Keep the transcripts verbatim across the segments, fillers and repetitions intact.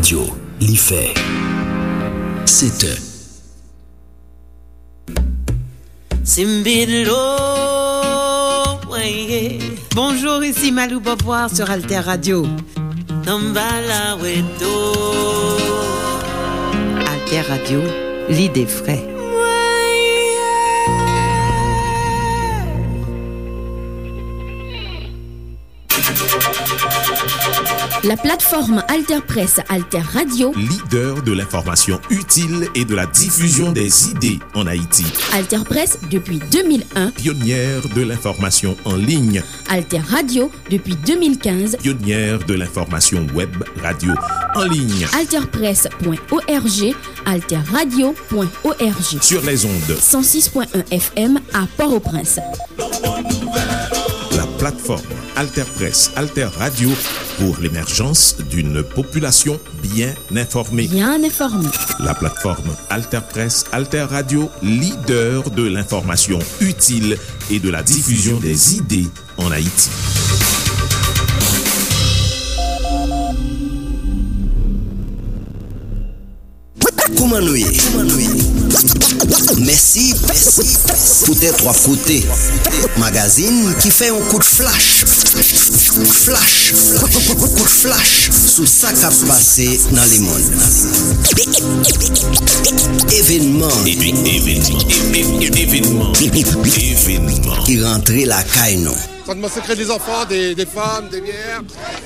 Radyo, li fè sèt è. Simbidlo, weye. Bonjour, ici Malou Beauvoir sur Alter Radio. Tambala weto. Alter Radio, l'idée vraie. La plateforme AlterPresse, Alter Radio. Leader de l'information utile et de la diffusion des idées en Haïti. AlterPresse depuis deux mille un. Pionnière de l'information en ligne. Alter Radio depuis deux mille quinze. Pionnière de l'information web radio en ligne. Alter Presse point O R G, Alter Radio point O R G. Sur les ondes. Cent six point un F M à Port-au-Prince. La plateforme Alter Presse, Alter Radio pour l'émergence d'une population bien informée. Bien informée. La plateforme Alter Presse, Alter Radio, leader de l'information utile et de la diffusion des idées en Haïti. Kouman nou ye? Mèsi poutèt w ap koute magazin ki fè yon kout flach, flach, kout flach sou sa k ap pase nan lemonn. Evenman, evenman, evenman, evenman ki rantre lakay nou. Sa mwen sekrè de zanfan, de, de fanm, de vyè.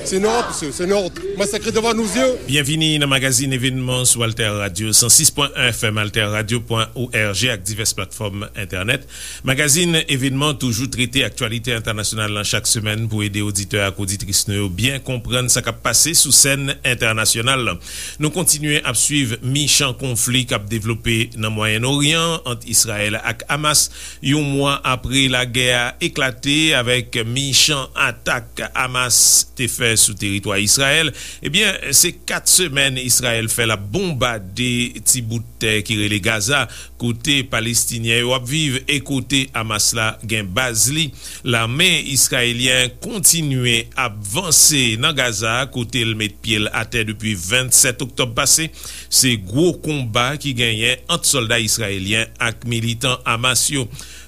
Se nou, mesye, se nou. Mwen sekrè devan nou zye. Byenvini nan magazin Evenman sou Alter Radio, san sis pwen en F M, alter radio pwen O R G ak divès platfòm entènèt. Magazin Evenman toujou trete aktyalite entènasyonal lan chak semèn pou ede oditè ak oditris nou yo byen konprann sa k ap pase sou sèn entènasyonal lan. Nou kontinye ap swiv michan konfli k ap devlope nan Mwayen Oryan ant Izrayèl ak Hamas, yon mwa apre lagè a eklate avèk michan atak Hamas te fè sou teritwa Izrayèl. Ebyen, se kat semèn Izrayèl fè l ap bonbade ti bout tè ki rele Gaza, kote Palestinyen yo ap viv e kote Hamas la gen baz li. Lame izrayelyen kontinye ap vanse nan Gaza, kote l met pye l atè depi vennsèt oktòb pase. Se gwo konba ki genyen ant sòlda izrayelyen ak militan Hamas yo.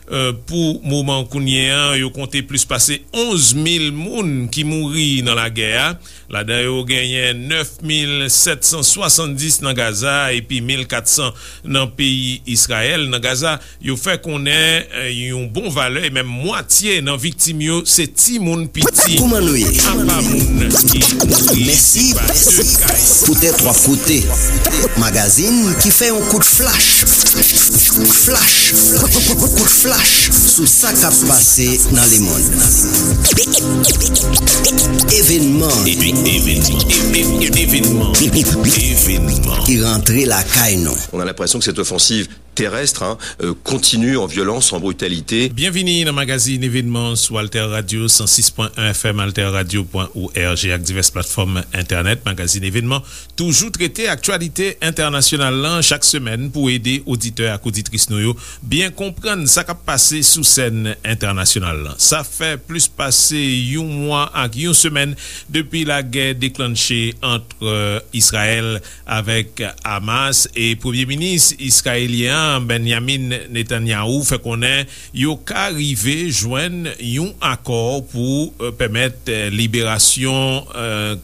Eh, pou moman kounye a, yo konte plis pase onz mil moun ki mouri nan lagè a. Ladan yo genyen nèf mil sèt san swasanndis nan Gaza epi mil kat san nan peyi Izrayèl. Nan Gaza, yo fè konnen, eh, yon bon valè, e menm mwatye nan viktim yo, se timoun piti. Kouman nou ye? Apa moun ki mouri, mèsi se pa de ka. Poutèt w ap koute magazin ki fè yon kout flach, flach, kout flach sou sa k ap pase nan lemonn. Evenman, evenman, evenman, evenman ki rantre lakay nou. On a l'impression que cette offensive terrestre, hein, euh, continue en violence, en brutalité. Byenvini nan magazin Evenman sou Alter Radio, san sis pwen en F M, alter radio pwen O R G ak divès platfòm entènèt. Magazin Evenman toujou trete aktyalite entènasyonal lan chak semèn pou ede oditè ak oditris nou yo byen konprann sa k ap pase sou sèn entènasyonal lan. Sa fè plis pase yon mwa ak yon semèn depi lagè deklanche ant, eh, Izrayèl avèk Hamas, e Premye Minis izrayelyen an, Benjamin Netanyahu, fè konnen yo ka rive jwenn yon akò pou, eh, pèmèt, eh, liberasyon, eh,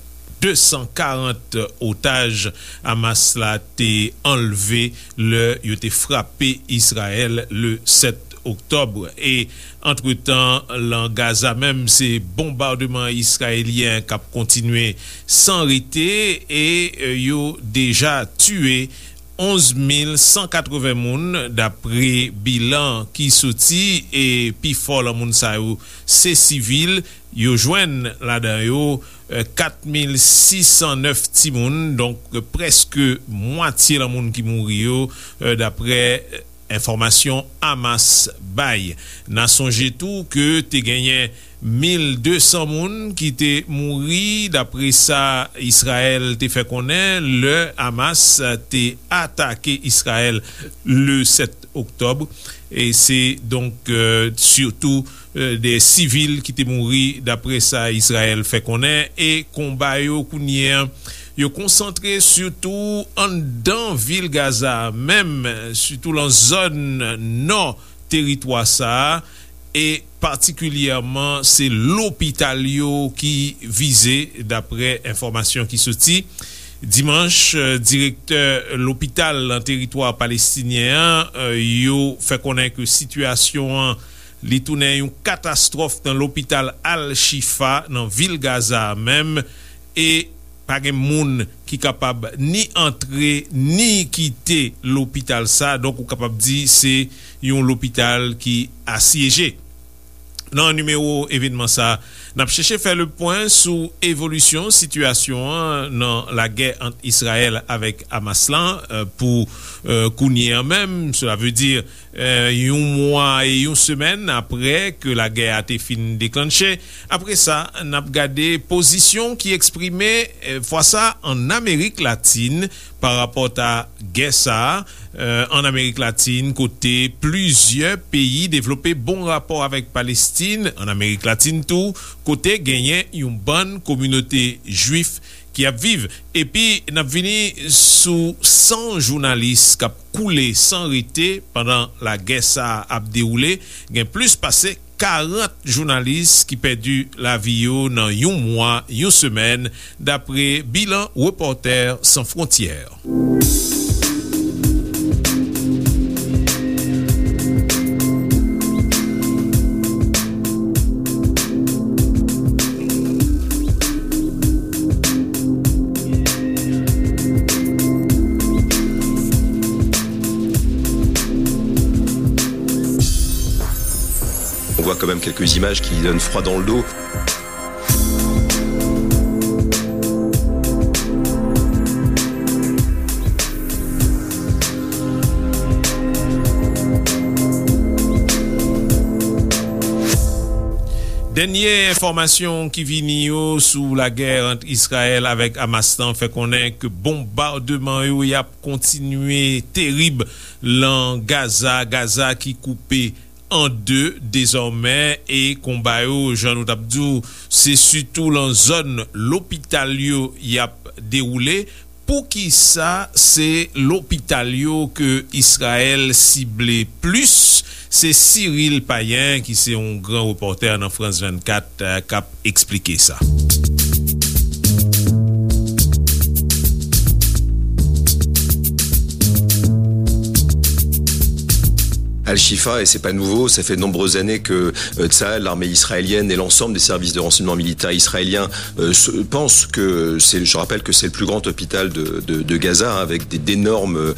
de san karant otaj Hamas la te anlve lè yo te frape Izrayèl le sèt oktòb. E antretan, lan Gaza menm, se bonbademan izrayelyen k ap kontinye san rete e, eh, yo deja tiye onz mil san katreven moun, dapre bilan ki soti, e pifò lan moun sa yo se sivil. Yo jwenn ladan yo, eh, kat mil sis san nèf timoun, donk, eh, prèske mwatye lan moun ki mouri yo, eh, dapre, eh, enfòmasyon Hamas bay. N a sonje tou ke te genyen mil de san moun ki te mouri, dapre sa Izrayèl te fè konnen, lè Hamas te atake Izrayèl le sèt oktòb. E se donk, eh, sitou, eh, de sivil ki te mouri, dapre sa Izrayèl fè konnen. E konba yo kounye a Yo konsantre sitou anndan vil Gaza a menm, sitou lan zòn nò teritwa sa a, e patikilyèman se lopital yo ki vize, daprè enfòmasyon ki soti. Dimanch, direktè lopital lan teritwa palestinyen an, yo fè konnen ke sitiyasyon an, li tounen yon katastwòf nan lopital Al-Shifa nan vil Gaza a menm, e pa gen moun ki kapab ni antre ni kite lopital sa, donk ou kapab di se yon lopital ki asyeje. Nan nimewo evènman sa, n ap chèche fè le pwen sou evolisyon sitiyasyon an nan lagè ant Izrayèl avèk Hamas lan, eh, pou, eh, kounye an menm, sela vle di, eh, yon mwa e yon semèn aprè ke lagè a te fin deklanche. Apre sa, n ap gade pozisyon ki eksprime, eh, fwa sa, ann Amerik Latin pa rapò a gè sa a, eh, ann Amerik Latin, kote plizyè peyi devlope bon rapò avèk Palestin, ann Amerik Latin tou, kote genyen yon bann kominote jwif ki ap viv. Epi, n ap vini sou san jounalis k ap koule san rete pandan lagè sa a ap dewoule. Gen plis pase karant jounalis ki pèdi lavi yo nan yon mwa, yon semèn, dapre bilan Repòtè San Fwontyè. On voit quand même quelques images qui donnent froid dans le dos. Dènye enfòmasyon ki vini yo sou lagè ant Izrayèl avèk Hamas lan fè konnen ke bonbademan yo y ap kontinye terib lan Gaza, Gaza ki koupe an de dezòmè, e konba yo, jan nou t ap di w, se sitou lan zòn lopital yo y ap dewoule. Poukisa se lopital yo ke Izrayèl sible plis? Se Cyril Payen, ki se yon gran repòtè nan France vingt-quatre, k ap eksplike sa. Al-Shifa, et c'est pas nouveau, ça fait de nombreuses années que euh, Tsahal, l'armée israélienne et l'ensemble des services de renseignement militaire israéliens euh, se- pensent que c'est, je rappelle que c'est le plus grand hôpital de, de- de Gaza, hein, avec des- d'énormes euh,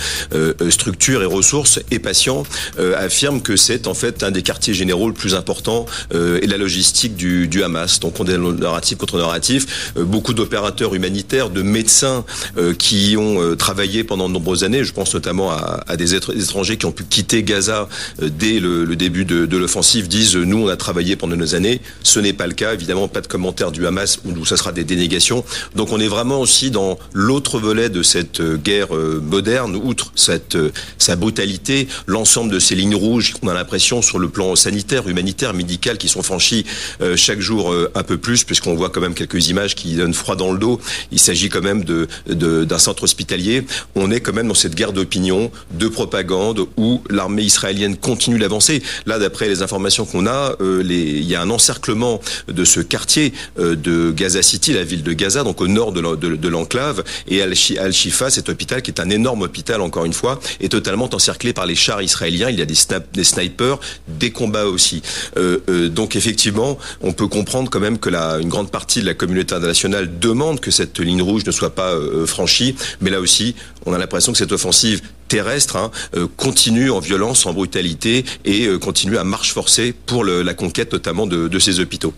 euh, structures et ressources et patients, euh, affirment que c'est en fait un des quartiers généraux le plus important euh, et la logistique du, du Hamas. Donc on est dans le narratif contre narratif. Euh, beaucoup d'opérateurs humanitaires, de médecins euh, qui y ont euh, travaillé pendant de nombreuses années. Je pense notamment à, à des étr- étrangers qui ont pu quitter Gaza euh, dès le, le début de, de l'offensive, disent euh, nous, on a travaillé pendant des années. Ce n'est pas le cas, évidemment, pas de commentaires du Hamas où, où ça sera des dénégations. Donc on est vraiment aussi dans l'autre volet de cette euh, guerre euh, moderne, outre cette, euh, sa brutalité, l'ensemble de ces lignes rouges qu'on a l'impression sur le plan sanitaire, humanitaire, médical qui sont franchies euh, chaque jour euh, un peu plus, puisqu'on voit quand même quelques images qui donnent froid dans le dos. Il s'agit quand même de, de- d'un centre hospitalier. On est quand même dans cette guerre d'opinion, de propagande, où l'armée israélienne continue d'avancer. Là, d'après les informations qu'on a, euh, les- il y a un encerclement de ce quartier euh, de Gaza City, la ville de Gaza, donc au nord de la- de- de l'enclave. Et Al-Shi- Al-Shifa, cet hôpital, qui est un énorme hôpital, encore une fois, est totalement encerclé par les chars israéliens. Il y a des, sna- des snipers, des combats aussi. Euh, euh, donc effectivement, on peut comprendre quand même que la- une grande partie de la communauté internationale demande que cette ligne rouge ne soit pas euh, franchie. Mais là aussi, on a l'impression que cette offensive terrestre hein, euh, continue en violence, en brutalité et euh, continue à marche forcée pour le- la conquête notamment de- de ces hôpitaux.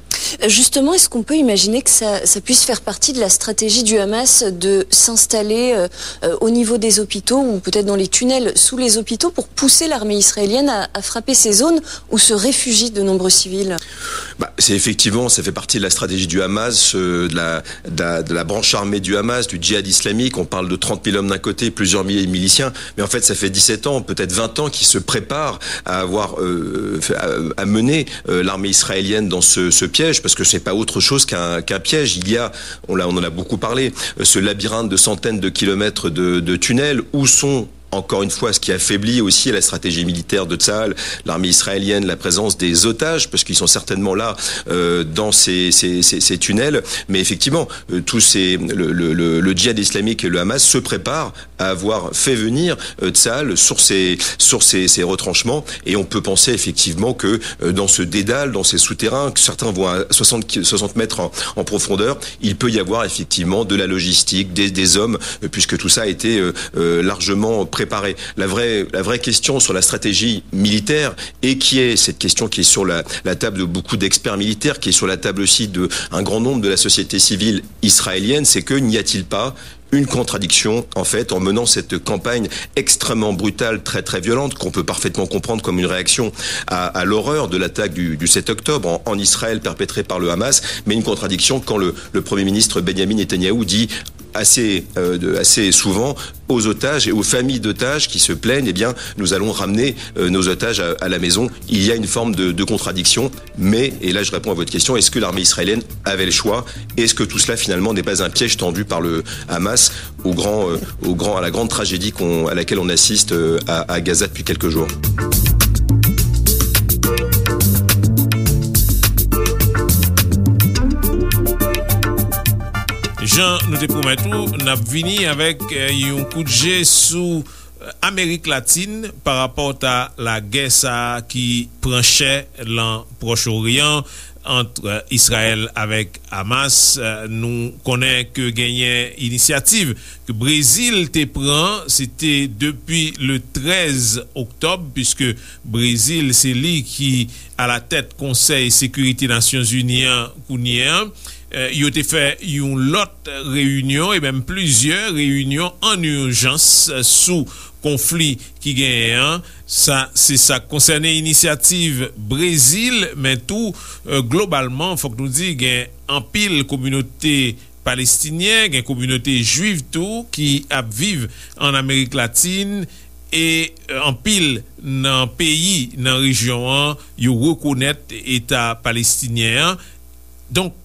Justement, est-ce qu'on peut imaginer que ça, ça puisse faire partie de la stratégie du Hamas de s'installer euh, euh, au niveau des hôpitaux ou peut-être dans les tunnels sous les hôpitaux pour pousser l'armée israélienne à, à frapper ces zones où se réfugient de nombreux civils ? Bah, c'est effectivement, ça fait partie de la stratégie du Hamas, euh, de, la, de, la, de la branche armée du Hamas, du djihad islamique. On parle de trente mille hommes d'un côté, plusieurs milliers de miliciens. Mais en fait, ça fait dix-sept ans, peut-être vingt ans, qu'ils se préparent à avoir, euh, à, à mener euh, l'armée israélienne dans ce, ce piège. parce que ce n'est pas autre chose qu'un qu'un piège. Il y a, on, l'a, on en a beaucoup parlé, euh, ce labyrinthe de centaines de kilomètres de, de tunnels. Où sont, encore une fois, ce qui affaiblit aussi la stratégie militaire de Tsahal, l'armée israélienne, la présence des otages, parce qu'ils sont certainement là euh, dans ces, ces, ces, ces tunnels. Mais effectivement, euh, tous ces, le, le, le, le djihad islamique et le Hamas se préparent à avoir fait venir euh, Tsahal sur ces, sur ces, ces retranchements. Et on peut penser effectivement que euh, dans ce dédale, dans ces souterrains, que certains vont à soixante, soixante mètres en, en profondeur, il peut y avoir effectivement de la logistique, des, des hommes, euh, puisque tout ça a été euh, euh, largement préparé. La vraie, la vraie question sur la stratégie militaire, et qui est cette question qui est sur la, la table de beaucoup d'experts militaires, qui est sur la table aussi d'un grand nombre de la société civile israélienne, c'est que n'y a-t-il pas une contradiction, en fait, en menant cette campagne extrêmement brutale, très, très violente, qu'on peut parfaitement comprendre comme une réaction à, à l'horreur de l'attaque du, du sept octobre en, en Israël perpétrée par le Hamas, mais une contradiction quand le, le Premier ministre Benjamin Netanyahou dit assez, euh, de, assez souvent aux otages et aux familles d'otages qui se plaignent, eh bien, nous allons ramener euh, nos otages à, à la maison. Il y a une forme de, de contradiction, mais, et là je réponds à votre question, est-ce que l'armée israélienne avait le choix? Est-ce que tout cela finalement n'est pas un piège tendu par le Hamas au grand, euh, au grand, à la grande tragédie qu'on, à laquelle on assiste euh, à, à Gaza depuis quelques jours? Jan nou te pwomèt ou, n ap vini avèk yon kout je sou Amerik Latin pa rapò a lagè sa a ki pran chè lan Pwòch Oryan ant Izrayèl avèk Hamas. Nou konnen ke genyen inisyativ ke Brezil te pran, se te depi le trèz oktòb, piske Brezil se li ki alatèt Konsèy Sekirite Nasyonzini an kounye a. Yo te fè yon lòt reyinyon e menm plizyè reyinyon an ijans sou konfli ki genyen an. Sa se sa k konsène inisyativ Brezil, men tou globalman fòk nou di gen anpil kominote palestinyen, gen kominote jwif tou ki ap viv ann Amerik Latin e anpil nan peyi nan rejyon an yo rekonèt eta palestinyen an. Donk,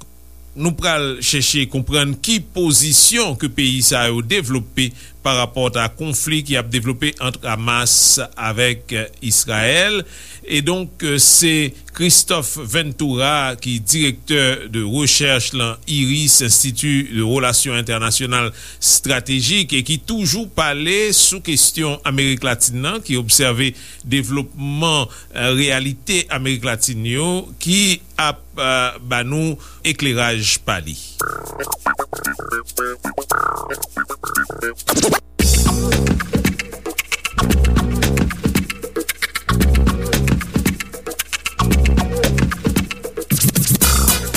nou pral chèche konprann ki pozisyon ke peyi sa yo devlope pa rapò a konfli ki ap devlope ant Hamas avèk Izrayèl. E donk, se Christophe Ventura ki direktè de rechèch lan IRIS, Institut de Relations Internationales Stratégiques, e ki toujou pale sou kesyon Amerik Latin nan, ki obsève devlopman reyalite Amerik Latin yo, ki ap ba nou ekleraj pa li.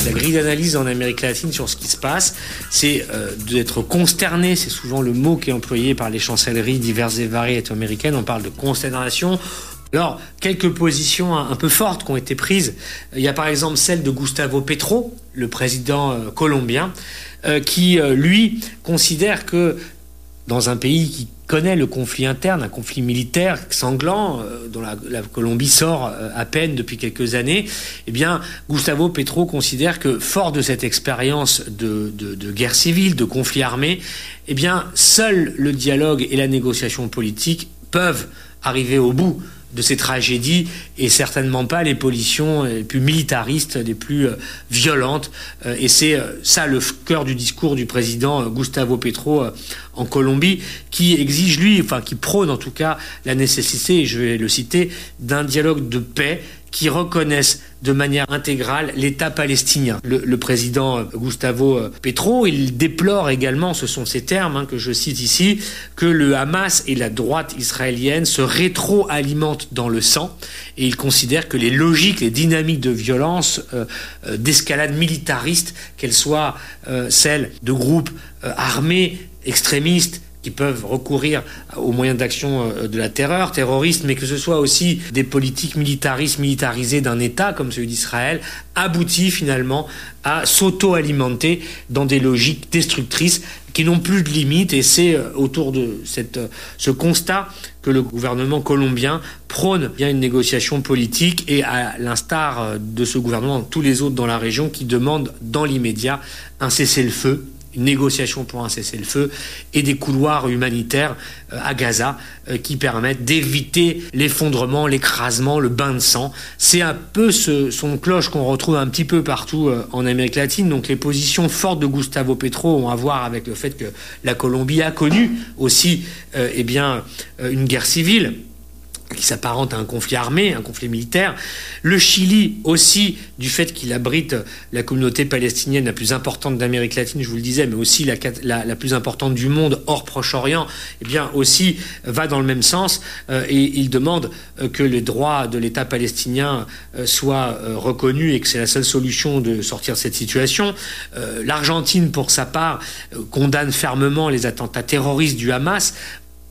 La grille d'analyse en Amérique latine sur ce qui se passe, c'est euh, d'être consterné, c'est souvent le mot qui est employé par les chancelleries diverses et variées américaines, on parle de consternation. Alors, quelques positions un peu fortes qui ont été prises. Il y a par exemple celle de Gustavo Petro, le président euh, colombien, euh, qui, euh, lui, considère que dans un pays qui connaît le conflit interne, un conflit militaire sanglant, euh, dont la, la Colombie sort euh, à peine depuis quelques années, eh bien, Gustavo Petro considère que, fort de cette expérience de, de, de guerre civile, de conflit armé, eh bien, seul le dialogue et la négociation politique peuvent arriver au bout de ces tragédies et certainement pas les positions les plus militaristes, les plus euh, violentes. Euh, et c'est euh, ça le cœur du discours du président Gustavo Petro en Colombie, qui exige, lui, enfin qui prône en tout cas la nécessité, et je vais le citer, d'un dialogue de paix qui reconnaisse de manière intégrale l'État palestinien. Le, le président Gustavo Petro, il déplore également, ce sont ces termes hein, que je cite ici, que le Hamas et la droite israélienne se rétroalimentent dans le sang et il considère que les logiques, les dynamiques de violence, euh, euh, d'escalade militariste, qu'elles soient euh, celles de groupes euh, armés, extrémistes, qui peuvent recourir aux moyens d'action, euh, de la terreur terroriste, mais que ce soit aussi des politiques militaristes, militarisées d'un État comme celui d'Israël, aboutit finalement à s'auto-alimenter dans des logiques destructrices qui n'ont plus de limite. Et c'est, euh, autour de cette, euh, ce constat que le gouvernement colombien prône bien une négociation politique et, à l'instar, euh, de ce gouvernement, tous les autres dans la région qui demandent dans l'immédiat un cessez-le-feu, une négociation pour un cessez-le-feu et des couloirs humanitaires, euh, à Gaza, euh, qui permettent d'éviter l'effondrement, l'écrasement, le bain de sang. C'est un peu ce son de cloche qu'on retrouve un petit peu partout, euh, en Amérique latine. Donc les positions fortes de Gustavo Petro ont à voir avec le fait que la Colombie a connu aussi, euh, eh bien, euh, une guerre civile qui s'apparente à un conflit armé, un conflit militaire. Le Chili aussi, du fait qu'il abrite la communauté palestinienne la plus importante d'Amérique latine, je vous le disais, mais aussi la, la, la plus importante du monde hors Proche-Orient, eh bien aussi va dans le même sens, euh, et il demande, euh, que les droits de l'État palestinien, euh, soient, euh, reconnus et que c'est la seule solution de sortir de cette situation. Euh, L'Argentine, pour sa part, euh, condamne fermement les attentats terroristes du Hamas,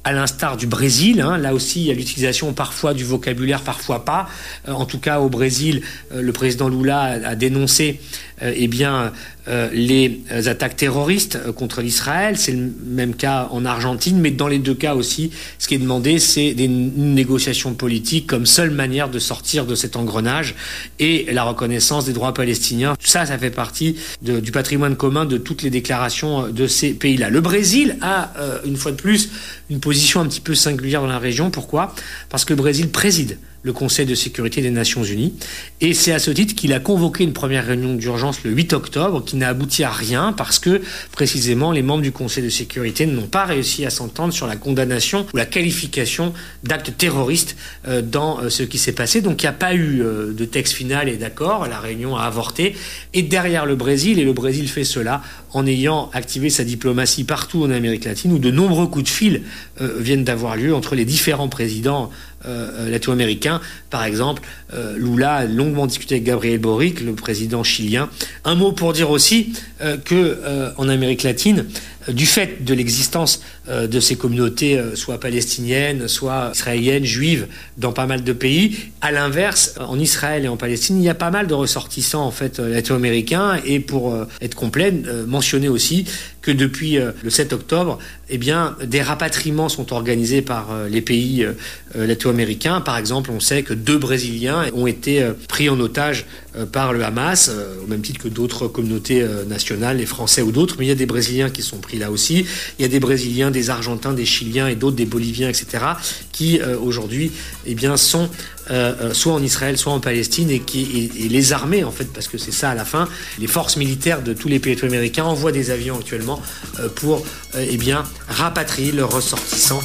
à l'instar du Brésil, hein, là aussi il y a l'utilisation parfois du vocabulaire, parfois pas. Euh, en tout cas au Brésil, euh, le président Lula a, a dénoncé, euh, eh bien, euh, les attaques terroristes, euh, contre l'Israël. C'est le même cas en Argentine, mais dans les deux cas aussi, ce qui est demandé, c'est des, une négociation politique comme seule manière de sortir de cet engrenage et la reconnaissance des droits palestiniens. Tout ça, ça fait partie de, du patrimoine commun de toutes les déclarations, euh, de ces pays-là. Le Brésil a, euh, une fois de plus, une position un petit peu singulière dans la région. Pourquoi ? Parce que le Brésil préside le Conseil de sécurité des Nations Unies. Et c'est à ce titre qu'il a convoqué une première réunion d'urgence le huit octobre, qui n'a abouti à rien parce que, précisément, les membres du Conseil de sécurité n'ont pas réussi à s'entendre sur la condamnation ou la qualification d'acte terroriste, euh, dans, euh, ce qui s'est passé. Donc, il n'y a pas eu, euh, de texte final et d'accord. La réunion a avorté. Et derrière le Brésil, et le Brésil fait cela en ayant activé sa diplomatie partout en Amérique latine, où de nombreux coups de fil, euh, viennent d'avoir lieu entre les différents présidents, euh, euh, latino-américains. Par exemple, euh, Lula a longuement discuté avec Gabriel Boric, le président chilien. Un mot pour dire aussi, euh, que, euh, en Amérique latine, euh, du fait de l'existence, euh, de ces communautés, euh, soit palestiniennes, soit israéliennes, juives, dans pas mal de pays, à l'inverse, en Israël et en Palestine, il y a pas mal de ressortissants, en fait, euh, latino-américains. Et pour, euh, être complet, euh, mentionner aussi que depuis, euh, le sept octobre, eh bien, des rapatriements sont organisés par, euh, les pays, euh, euh, latino-américains. Par exemple, on sait que deux Brésiliens ont été, euh, pris en otage, euh, par le Hamas, euh, au même titre que d'autres communautés, euh, nationales, les Français ou d'autres, mais il y a des Brésiliens qui sont pris là aussi. Il y a des Brésiliens, des Argentins, des Chiliens et d'autres, des Boliviens, et cetera, qui, euh, aujourd'hui, eh bien, sont, euh, euh, soit en Israël, soit en Palestine, et qui, et, et les armées, en fait, parce que c'est ça à la fin, les forces militaires de tous les pays latino-américains envoient des avions actuellement, euh, pour, euh, eh bien, rapatrier leurs ressortissants.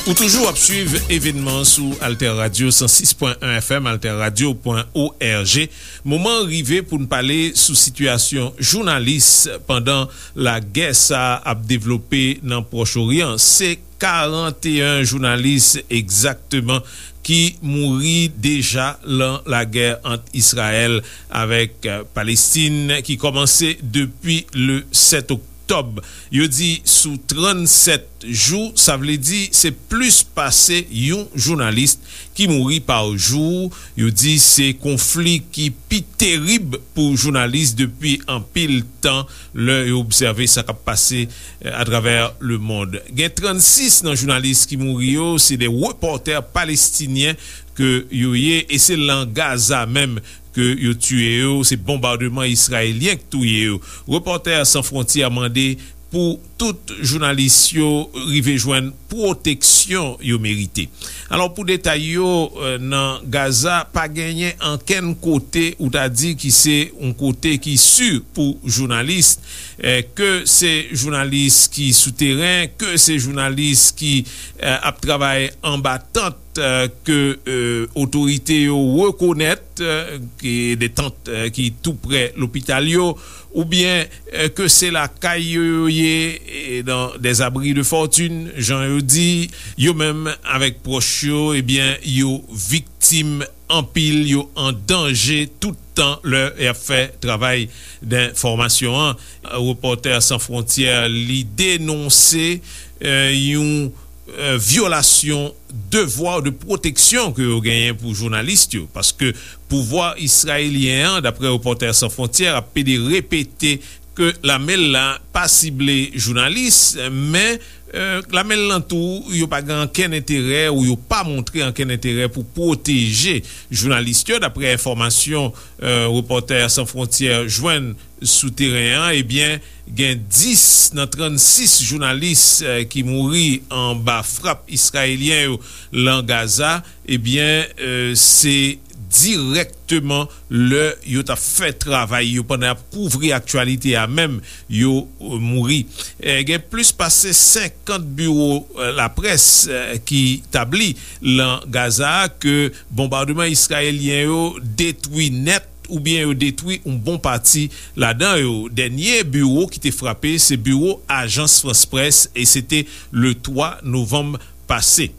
Ou toujou ap swiv evènman sou Alter Radio san sis pwen en F M, alter radio pwen O R G. Moman an rive pou n pale sou sitiyasyon jounalis pandan lagè sa a ap devlope nan Pwòch Oryan. Se karanteyen jounalis egzakteman ki mouri deja lan lagè ant Izrayèl avèk, eh, Palestin ki kòmanse depi le sèt oktòb. Yo di sou trannsèt jou, sa vle di se plis pase yon jounalis ki mouri pa jou. Yo di se konfli ki pi terib pou jounalis depi anpil tan lè yo obsève sa k ap pase, eh, atravè lemonn. Gen trannsis nan jounalis ki mouri yo, se de repòtè palestinyen ke yo ye, e se lan Gaza menm ke yo tiye yo, se bonbademan izrayelyen k touye yo. Repòtè San Fwontyè mande pou tout jounalis yo rive jwenn pwoteksyon yo merite. Alò, pou detay yo, eh, nan Gaza, pa genyen ankenn kote ou ta di ki se yon kote ki si pou jounalis, eh, ke se jounalis ki sou teren, ke se jounalis ki, eh, ap travay anba tant, eh, ke, eh, otorite yo rekonèt, eh, ki de tant, eh, ki tou prè lopital yo, oubyen, eh, ke se lakay yo yo ye, eh, dans des abris de fortune, jan yo di, yo menm avèk pwòch yo, ebyen, yo viktim anpil, yo an danje tout tan lè y ap fè travay denfòmasyon an. Repòtè San Fwontyè, li denonse, eh, yon, eh, vyolasyon devwa de pwoteksyon ke yo genyen pou jounalis yo, paske pouvwa israelyen an, daprè Repòtè San Fwontyè, ap pede repete ke lame l la pa sible jounalis, men, eh, lame l lan tou, yo pa gen ankenn enterè ou yo pa montre ankenn enterè pou pwoteje jounalis yo, daprè enfòmasyon, eh, Repòtè San Fwontyè jwenn sou teren an, ebyen, gen dis nan trannsis jounalis, eh, ki mouri anba frap israelyen yo lan Gaza, ebyen, eh, se dirèkteman lè yo t ap fè travay yo, pandan y ap kouvri aktyalite a menm, yo, eh, mouri. Eh, gen plis pase senkant biwo, eh, laprès, eh, ki tabli lan Gaza ke bonbadman israelyen yo detwi nèt oubyen yo detwi yon bon pati ladan yo. Dènye biwo ki te frape, se biwo Ajans Frans Près, e se te le twa novanm pase.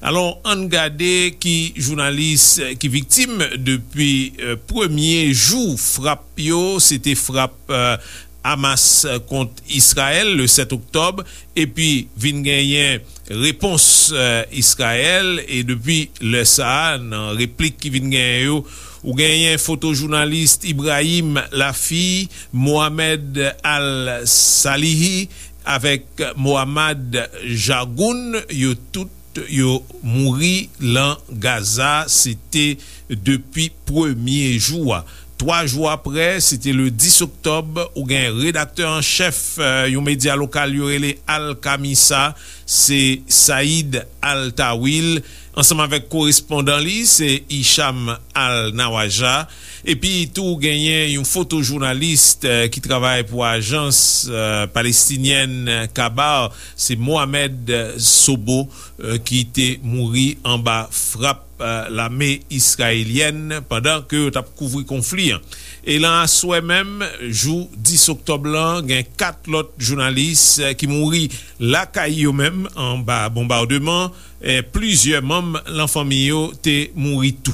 Alò, ann gade ki jounalis, eh, ki viktim depi, eh, premye jou frap yo, se te frap, eh, Hamas kont Israël le sèt oktòb, epi vin genyen repons, eh, Israël, e depi lè sa a, nan replik ki vin genyen yo, ou genyen foto jounalis Ibrahim Lafi, Mohamed Al-Salihi avèk Mohammad Jagoun, yo tout yo mouri lan Gaza, se te depi premye jou a. Twa jou apre, se te le dis oktòb, ou gen redaktè an chèf, eh, yon medya lokal yo rele Al Kamisa, se Said Al Tawil, ansanm avèk korespondan li, se Hicham Al Nawaja. Epi tou, genyen yon fotojounalis, eh, ki travay pou ajans, eh, palestinyèn Kabar, se Mohamed Sobo, eh, ki te mouri anba frap, eh, lame israelyèn pandan ke yo t ap kouvri konfli an. E lan aswè menm, jou dis oktòb lan, gen kat lòt jounalis, eh, ki mouri lakay yo menm anba bonbademan, eh, plizyè manm lan fanmi yo te mouri tou.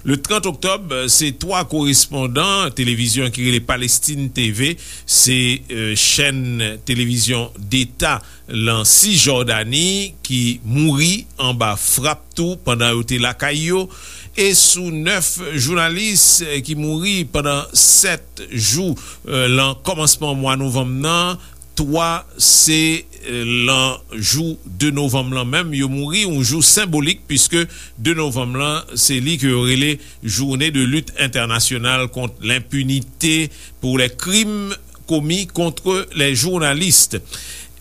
Le trant oktòb, se twa korespondan televizyon ki rele Palestine T V, se, eh, chèn televizyon deta lan Sisjòdani ki mouri anba frap tou pandan yo te lakay yo, e sou nèf jounalis, eh, ki mouri pandan sèt jou, eh, lan kòmansman mwa novanm nan, twa se, eh, lan jou de novanm lan menm, yo mouri, yon jou senbolik, piske de novanm lan, se li ke yo rele Journée de lutte internationale contre l'impunité pour les crimes commis contre les journalistes.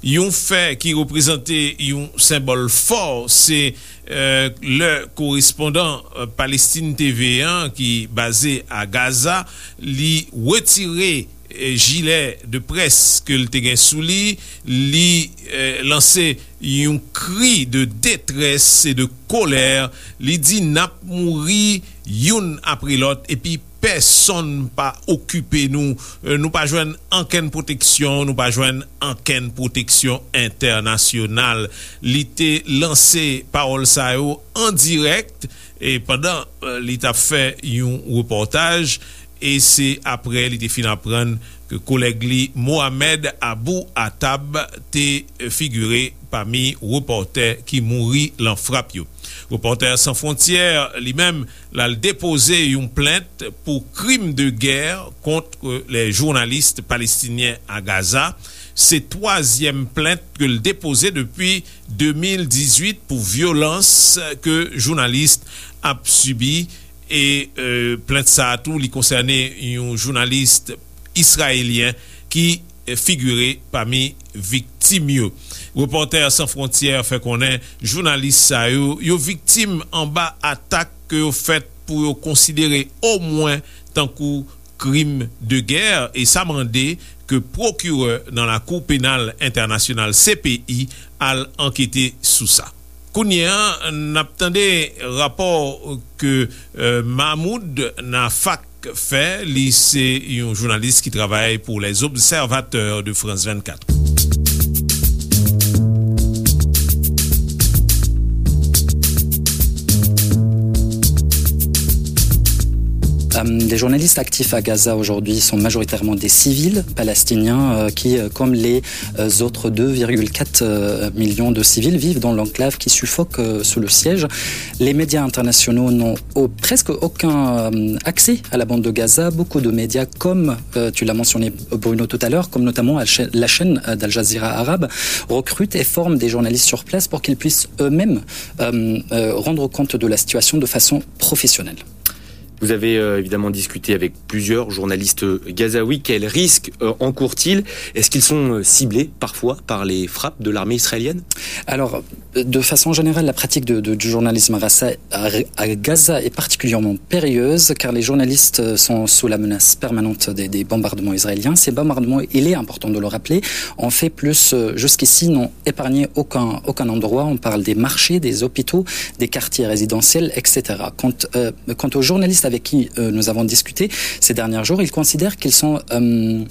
Yon fè ki reprezante yon senbòl fò, se, eh, lè korespondan, eh, Palestine T V an, ki baze a Gaza, li retire, eh, jilè de près ke l te gen sou li, li, eh, lanse yon kri de detrès e de kolè, li di, "N ap mouri youn apre lòt, epi pèsonn pa okipe nou. Eh, nou pa jwenn ankenn pwoteksyon, nou pa jwenn ankenn pwoteksyon entènasyonal." Li te lanse pawòl sa yo an dirèk, e pandan, eh, li t ap fè yon repòtaj, e se apre li te fin aprann ke kolèg li Mohamed Abou Atab te figire pami repòtè ki mouri lan frap yo. Repòtè San Fwontyè, li menm, l al depoze yon plent pou krim de gè kont lè jounalis palestinyen a Gaza. Se twazyèm plent ke l depoze depi de mil dizuit pou vyolans ke jounalis ap sibi. E, eh, plent sa a tou, li konsène yon jounalis israelyen ki, eh, figire pami viktim yo. Repòtè San Fwontyè fè konnen jounalis sa yo, yo viktim anba atak ke yo fèt pou yo konsidere omwen tankou krim de gè, e sa mande ke pwokirè nan Lakou Penal Entènasyonal, C P I, al ankete sou sa. Kounye a, n ap tande rapò ke, eh, Mahmoud Nafak fè. Li se yon jounalis ki travay pou Les Observateurs de France vennkat. Euh, les journalistes actifs à Gaza aujourd'hui sont majoritairement des civils palestiniens euh, qui, euh, comme les euh, autres deux virgule quatre euh, millions de civils, vivent dans l'enclave qui suffoque euh, sous le siège. Les médias internationaux n'ont au- presque aucun euh, accès à la bande de Gaza. Beaucoup de médias, comme euh, tu l'as mentionné Bruno tout à l'heure, comme notamment Al- la chaîne euh, d'Al Jazeera Arabe, recrutent et forment des journalistes sur place pour qu'ils puissent eux-mêmes euh, euh, rendre compte de la situation de façon professionnelle. Vous avez euh, évidemment discuté avec plusieurs journalistes gazaouis. Quels risques euh, encourent-ils ? Est-ce qu'ils sont euh, ciblés parfois par les frappes de l'armée israélienne ? Alors, de façon générale, la pratique de- de- du journalisme à, à- à Gaza est particulièrement périlleuse car les journalistes euh, sont sous la menace permanente des, des bombardements israéliens. Ces bombardements, il est important de le rappeler, ont fait plus euh, jusqu'ici, n'ont épargné aucun, aucun endroit. On parle des marchés, des hôpitaux, des quartiers résidentiels, et cetera. Quant, euh, quant aux journalistes avec qui euh, nous avons discuté ces derniers jours, ils considèrent qu'ils sont euh,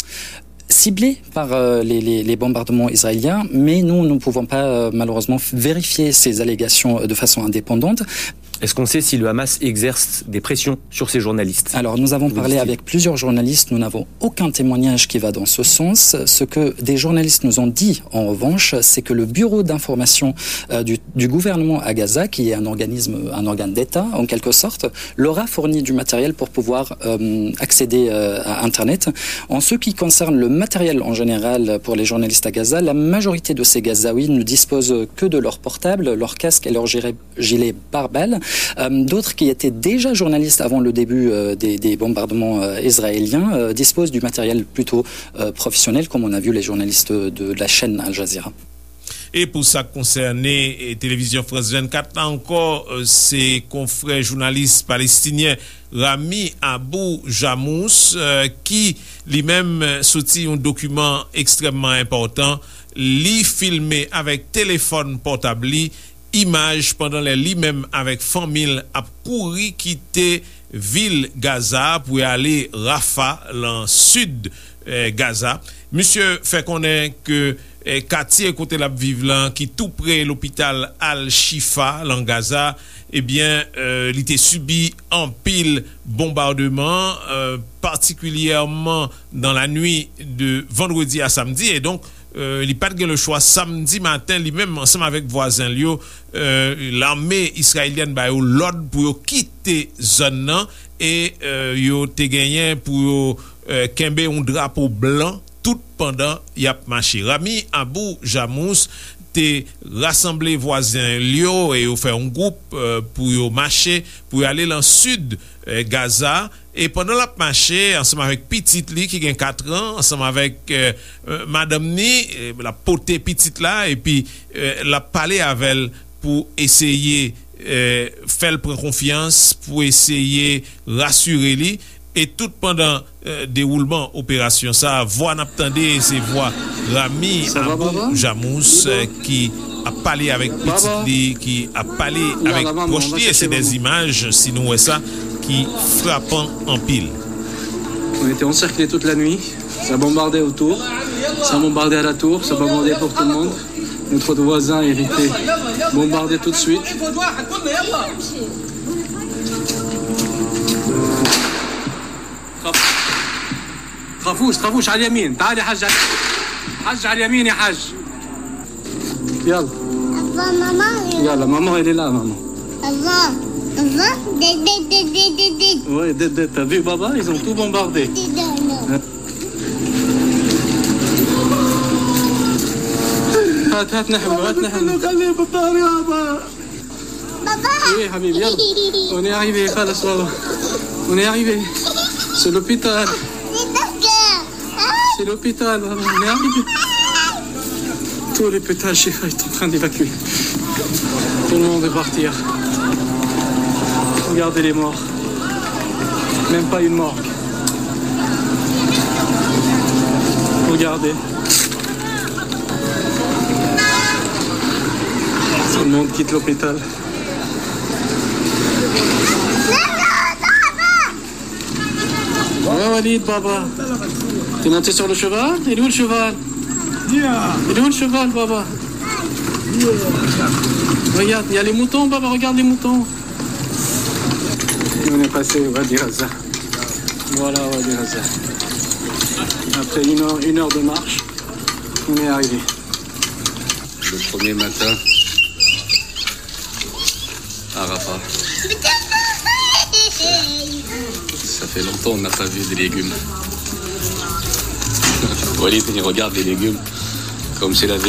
ciblés par euh, les, les- les bombardements israéliens, mais nous ne pouvons pas euh, malheureusement vérifier ces allégations euh, de façon indépendante. Est-ce qu'on sait si le Hamas exerce des pressions sur ces journalistes ? Alors, nous avons parlé avec plusieurs journalistes, nous n'avons aucun témoignage qui va dans ce sens. Ce que des journalistes nous ont dit, en revanche, c'est que le bureau d'information euh, du, du gouvernement à Gaza, qui est un organisme, un organe d'État en quelque sorte, leur a fourni du matériel pour pouvoir euh, accéder euh, à Internet. En ce qui concerne le matériel en général pour les journalistes à Gaza, la majorité de ces Gazaouis ne disposent que de leur portable, leur casque et leur gilet, gilet pare-balles. Euh, d'autres qui étaient déjà journalistes avant le début euh, des, des bombardements euh, israéliens euh, disposent du matériel plutôt euh, professionnel, comme on a vu les journalistes de la chaîne Al Jazeera. E pou sa k konsène eh, televizyon France vingt-quatre la ankò, eh, se konfrè jounalis palestinyen Rami Abou Jamous eh, ki li menm eh, soti yon dokiman ekstrèmman enpòtan. Li filme avèk telefòn pòtab li imaj pandan lè li menm avèk fanmi l ap kouri kite vil Gaza pou y ale Rafah, lan sid eh, Gaza. Misye fè konnen ke eh, katye kote l ap viv lan, ki tou pre lopital Al-Shifa, lan Gaza, ebyen, eh, li te sibi anpil bonbademan, eh, patikilyèman nan lannuit de vandredi a samdi. E donk, eh, li pa t gen lechwa. Samdi maten, li menm, ansanm avèk vwazen l yo, eh, lame israyelyèn ba yo lòd pou yo kite zòn nan e eh, yo te genyen pou yo eh, kenbe yon drapo blan tout pandan y ap mache. Rami Abou Jamous te rasanble vwazen l yo e yo fè yon gwoup eh, pou yo mache, pou yo ale lan sid eh, Gaza. E pandan l ap mache, ansanm avèk pitit li ki gen kat an, ansanm avèk eh, eh, madanm ni, eh, l ap pote pitit la, epi eh, l ap pale avè l pou eseye eh, fè l pran konfyans, pou eseye rasire li. E tout pandan eh, dewoulman operasyon sa a, vwa n ap tande se vwa Rami Abou Jamous eh, ki ap pale avèk pitit li, ki ap pale avèk pwòch li. E se de imaj, si nou wè sa, ki frapan anpil. On était encerclés toute la nuit. Ça bombardait autour. Ça bombardait à la tour. Ça bombardait pour tout le monde. Notre voisin a été bombardé tout de suite. خافوش، خافوش، على اليمين. تعال يا حاج، على اليمين. حاج، على اليمين يا حاج. يلا. Papa, maman. Yalla, maman, elle est là, maman. Papa, papa, dé, dé, dé, dé, dé, dé. Ouais, dé, dé, t'as vu, baba, ils ont tout bombardé. Dé, dé, non. هات، هات نحمله، هات نحمله. Oui, حبيبي، يلا. On est arrivé, خلاص، بابا. On est arrivé. C'est l'hôpital. C'est l'hôpital, baba. On est arrivé. Tout l'hôpital Shifa est en train d'évacuer. Tout le monde est parti, hein. Regardez les morts. Même pas une morgue. Regardez. Tout le monde quitte l'hôpital. Ouais, Walid, baba. T'es monté sur le cheval ? Il est où le cheval ? Il est où le cheval, baba ? Regarde, il y a les moutons, baba, regarde les moutons. On est passé au Wadi Gaza. Voilà, Wadi Gaza. Après une heure, une heure de marche, on est arrivé. Le premier matin à Rafah. Ça fait longtemps on n'a pas vu des légumes. Walid, il regarde les légumes comme s'il avait